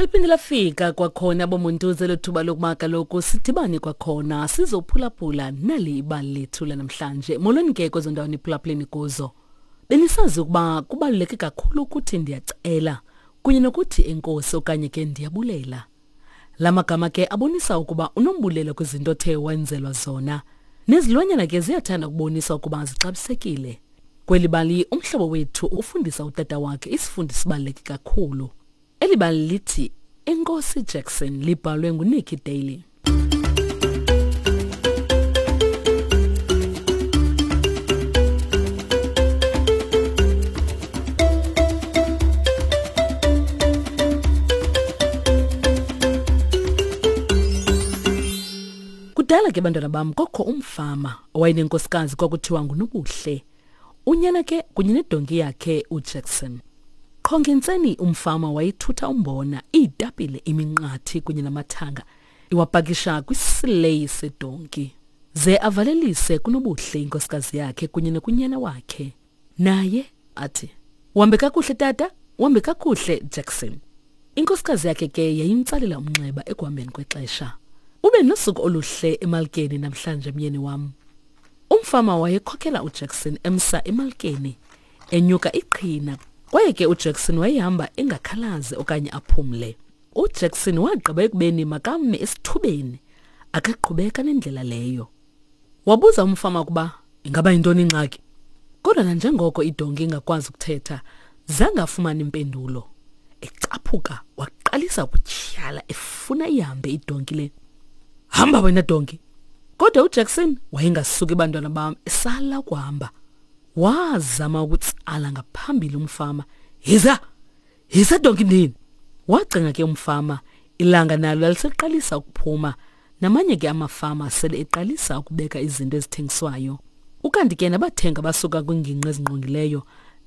Seliphinde lafika kwakhona bomuntuze lethuba lokuba kaloku sidibane kwakhona sizophulaphula nali ibali lethu lanamhlanje. Molweni ke kwezo ndawo niphulaphuleni kuzo. Benisazi ukuba kubaluleke kakhulu ukuthi ndiyacela kunye nokuthi enkosi okanye ke ndiyabulela. La magama ke abonisa ukuba unombulelo kwizinto othe wenzelwa zona. Nezilwanyana ke ziyathanda ukubonisa ukuba zixabisekile. Kweli bali umhlobo wethu ufundisa utata wakhe isifundo sibaluleke kakhulu. Eli bali lithi Enkosi Jackson libhalwe nguNikki Daly. Kudala ke bantwana bam kokho umfama owayenenkosikazi kwakuthiwa nguNobuhle. Unyana ke kunye nedonki yakhe uJackson. Qho ngentseni umfama wayethutha umbona, iitapile, iminqathi kunye namathanga iwapakisha kwisileyi sedonki. Ze avalelise kuNobuhle inkosikazi yakhe kunye nokunyana wakhe. Naye athi, Uhambe kakuhle tata, uhambe kakuhle Jackson. Inkosikazi yakhe ke yayimtsalela umnxeba ekuhambeni kwexesha. Ube nosuku oluhle emalkeni namhlanje myeni wam. Umfama wayekhokela uJackson emsa emalkeni, enyuka iqhina, kwaye ke uJackson wayehamba engakhalazi okanye aphumle. UJackson wagqiba ekubeni makame esithubeni, akaqhubeka nendlela leyo. Wabuza umfama ukuba ingaba yintoni ingxaki. Kodwa nanjengoko idonki ingakwazi ukuthetha, zange afumane impendulo. Ecaphuka waqalisa ukutyhala efuna ihambe idonki le. Hamba wena donki! Kodwa uJackson wayengasuki bantwana bam esala ukuhamba. Wazama ukutsala ngaphambili umfama. Yiza! Yiza donki ndini! Wacinga ke umfama, ilanga nalo laliseqalisa ukuphuma. Namanye ke amafama sele eqalisa ukubeka izinto ezithengiswayo. Ukanti ke nabathengi abasuka kwiingingqi ezingqongileyo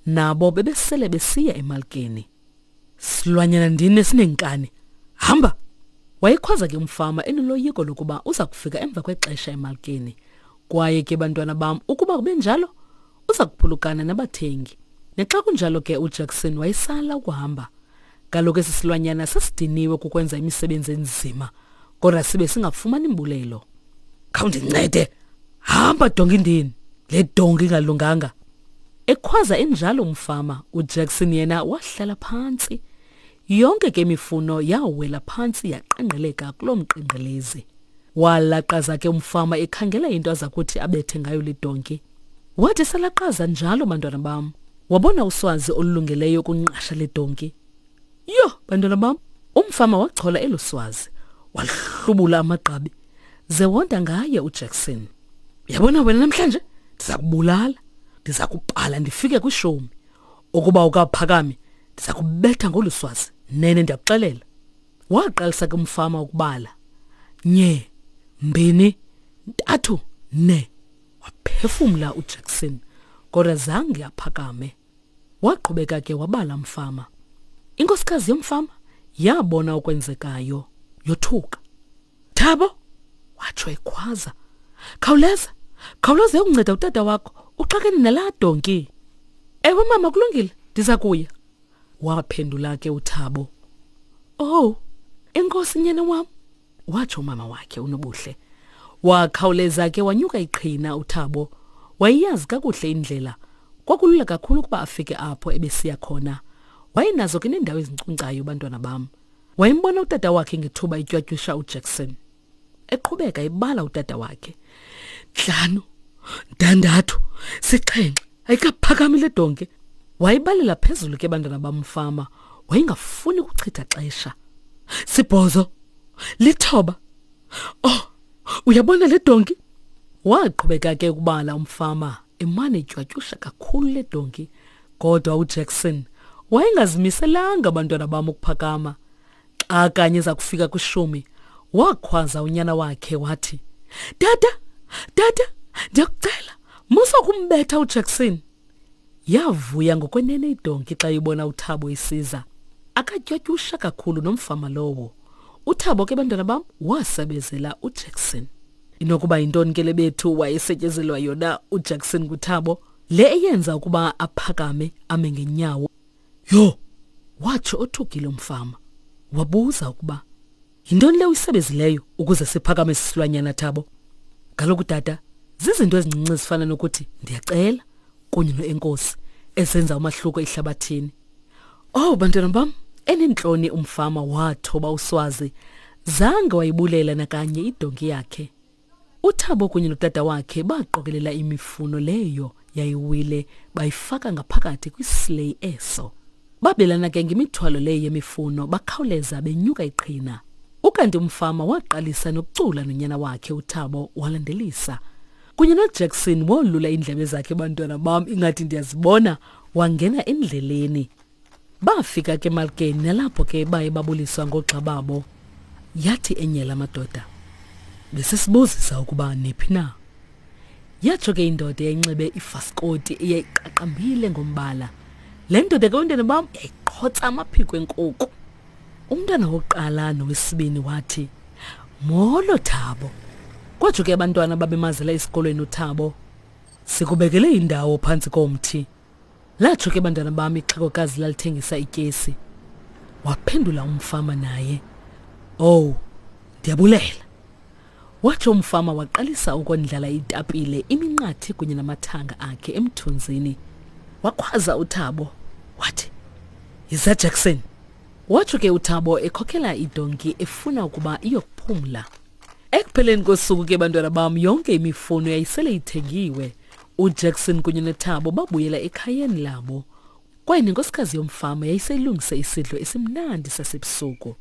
nabo bebesele besiya emalkeni. Silwanyana ndini esineenkani. Hamba! Wayekhwaza ke umfama enoloyiko lokuba uza kufika emva kwexesha emalkeni. Kwaye ke bantwana bam, ukuba kube njalo, uza kuphulukana nabathengi. Nexa kunjalo ke uJackson wayesala ukuhamba. Kaloku esi silwanyana sasidiniwe kukwenza imisebenzi enzima, kodwa sibe singafumani mbulelo. Khawundincede, hamba donki ndini, le donki ingalunganga. Ekhwaza enjalo umfama, uJackson yena wahlala phantsi. Yonke ke imifuno yawela phantsi yaqengqeleka kuloo mqengqelezi. Walaqaza ke umfama ekhangela into aza kuthi abethe ngayo le donki. Wathi esalaqaza njalo bantwana bam, wabona uswazi olulungeleyo ukunqasha le donki. Yho, bantwana bam, umfama wachola elo swazi, walihlubula amagqabi, ze wonda ngaye uJackson. Uyabona wena namhlanje ndiza kubulala, ndiza kubhala ndifike kwishumi. Ukuba ukaphakami, ndiza kubetha ngolu swazi, nene ndiyakuxelela. Waqalisa ke umfama ukubala. Nye, mbini, ntathu, ne. Waphefumla uJackson, kodwa zange aphakame. Waqhubeka ke wabala mfama. Inkosikazi yomfama yabona okwenzekayo, yothuka. Thabo, watsho ekhwaza. Khawuleza, khawuleza uyokunceda utata wakho, uxakene nalaa donki. Ewe mama, kulungile, ndiza kuya. Waphendula ke uThabo. Oh, enkosi nyana wam, watsho umama wakhe uNobuhle. Wakhawuleza ke wanyuka iqhina uThabo. Wayeyazi kakuhle indlela. Kwakulula kakhulu ukuba afike apho ebesiya khona. Wayenazo ke neendawo ezinkcunkcayo bantwana bam. Wayembona utata wakhe ngethuba etywatyusha uJackson. Eqhubeka ebala utata wakhe. Ntlanu, ntandathu, sixhenxe, ayikaphakami le donke. Wayibalela phezulu ke bantwana bamfama. Wayengafuni kuchitha xesha. Sibhozo, lithoba. Oh, uyabona le donki? Waqhubeka ke ukubala umfama emane etywatyusha kakhulu le donki. Kodwa uJackson wayengazimiselanga abantwana bam ukuphakama. Xa kanye eza kufika kwishumi, wakhwaza unyana wakhe wathi, Tata, tata, ndiyakucela, musa ukumbetha uJackson. Yavuya ngokwenene idonki xa ibona uThabo isiza. Akatywatyusha kakhulu nomfama lowo. UThabo ke bantwana bam wasebezela uJackson. Inokuba yintoni ke le bethu wayesetyezelwa yona uJackson kuThabo? Le eyenza ukuba aphakame ame ngenyawo. Yho! Watsho othukile umfama. Wabuza ukuba yintoni le uyisebezileyo ukuze siphakame sisilwanyana Thabo. Kaloku tata, zizinto ezincinci ezifana nokuthi ndiyacela kunye noenkosi ezenza umahluko ehlabathini. Oh bantwana bam, enentloni umfama wathoba uswazi zange wayibulela nakanye idonki yakhe. UThabo kunye notata wakhe baqokelela imifuno leyo yayiwile bayifaka ngaphakathi kwisileyi eso. Babelana ke ngemithwalo leyo yemifuno bakhawuleza benyuka iqhina. Ukanti umfama waqalisa nokucula nonyana wakhe uThabo walandelisa. Kunye noJackson wolula iindlebe zakhe bantwana bam ingathi ndiyazibona wangena endleleni. Bafika ke emalkeni nalapho ke baye babuliswa ngoogxa babo. Yathi enye la madoda, besesibuzisa ukuba niphi na. Yatsho ke indoda eyayinxibe ifaskoti eyayiqaqambile ngombala. Le ndoda ke bantwana bam yayiqhotsa amaphiko enkuku. Umntwana wokuqala nowesibini wathi, Molo Thabo. Kwatsho ke abantwana babemazela esikolweni uThabo. Sikubekele indawo phantsi komthi. Latsho ke bantwana bam ixhegokazi lalithengisa ityesi. Waphendula umfama naye. Oh, ndiyabulela. Watsho umfama waqalisa ukondlala itapile, iminqathi kunye namathanga akhe emthunzini. Wakhwaza uThabo wathi, Yiza Jackson. Watsho ke uThabo ekhokela idonki efuna ukuba iyokuphumla. Ekupheleni kosuku ke bantwana bam yonke imifuno yayisele ithengiwe. UJackson kunye noThabo babuyela ekhayeni labo. Kwaye nenkosikazi yomfama yayiseyilungise isidlo esimnandi sasebusuku.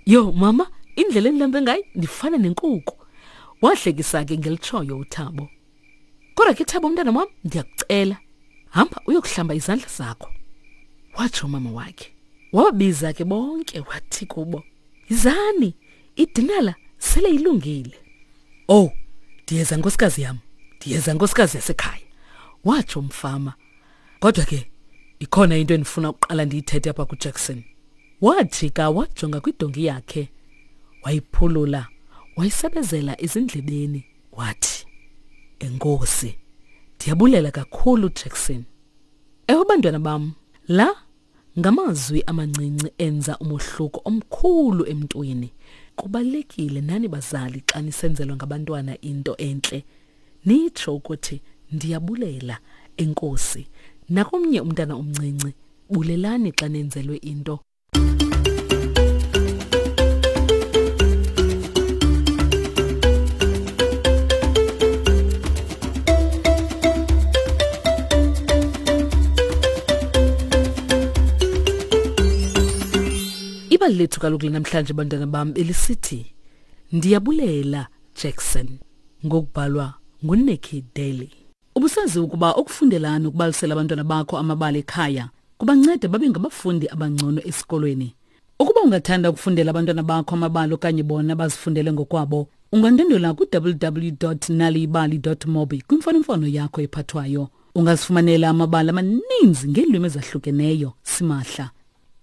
Yho mama, indlela endilambe ngayo ndifana nenkuku. Wahlekisa ke ngelitshoyo uThabo. Kodwa ke Thabo mntana wam ndiyakucela, hamba uyokuhlamba izandla zakho. Watsho umama wakhe. Wababiza ke bonke wathi kubo, Yizani, idinala sele ilungile. Oh, ndiyeza nkosikazi yam, ndiyeza nkosikazi yasekhaya, watsho umfama. Kodwa ke ikhona into endifuna ukuqala ndiyithethe apha kuJackson. Wajika wajonga kwidonki yakhe, wayiphulula, wayisebezela ezindlebeni, wathi, Enkosi, ndiyabulela kakhulu Jackson. Ewe bantwana bam, la Ngamazwi amancinci enza umohluko omkhulu emntwini. Kubalulekile nani bazali xa nisenzelwa ngabantwana into entle nitsho ukuthi ndiyabulela enkosi. Nakomnye umntana omncinci bulelani xa nenzelwe into. Ibali lethu kaloku lanamhlanje bantwana bam belisithi Ndiyabulela Jackson ngokubhalwa nguNikki Daly. Ubusazi ukuba ukufundela nokubalisela abantwana bakho amabali ekhaya kubanceda babe ngabafundi abangcono esikolweni. Ukuba ungathanda ukufundela abantwana bakho amabali okanye bona bazifundele ngokwabo, ungandwendwela ku-www.naliyibali.mobi kwimfonomfono yakho ephathwayo. Ungazifumanela amabali amaninzi ngeelwimi ezahlukeneyo simahla.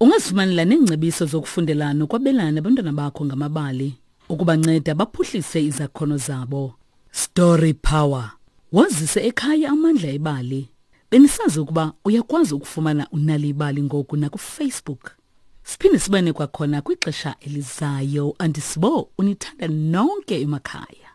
Ungazifumanela neengcebiso zokufundela nokwabelana nabantwana bakho ngamabali ukubanceda baphuhlise izakhono zabo. Story Power. Wazise ekhaya amandla ebali. Benisazi ukuba uyakwazi ukufumana uNal'ibali ngoku nakuFacebook. Siphinde sibane kwakhona kwixesha elizayo. Andisibo unithanda nonke emakhaya.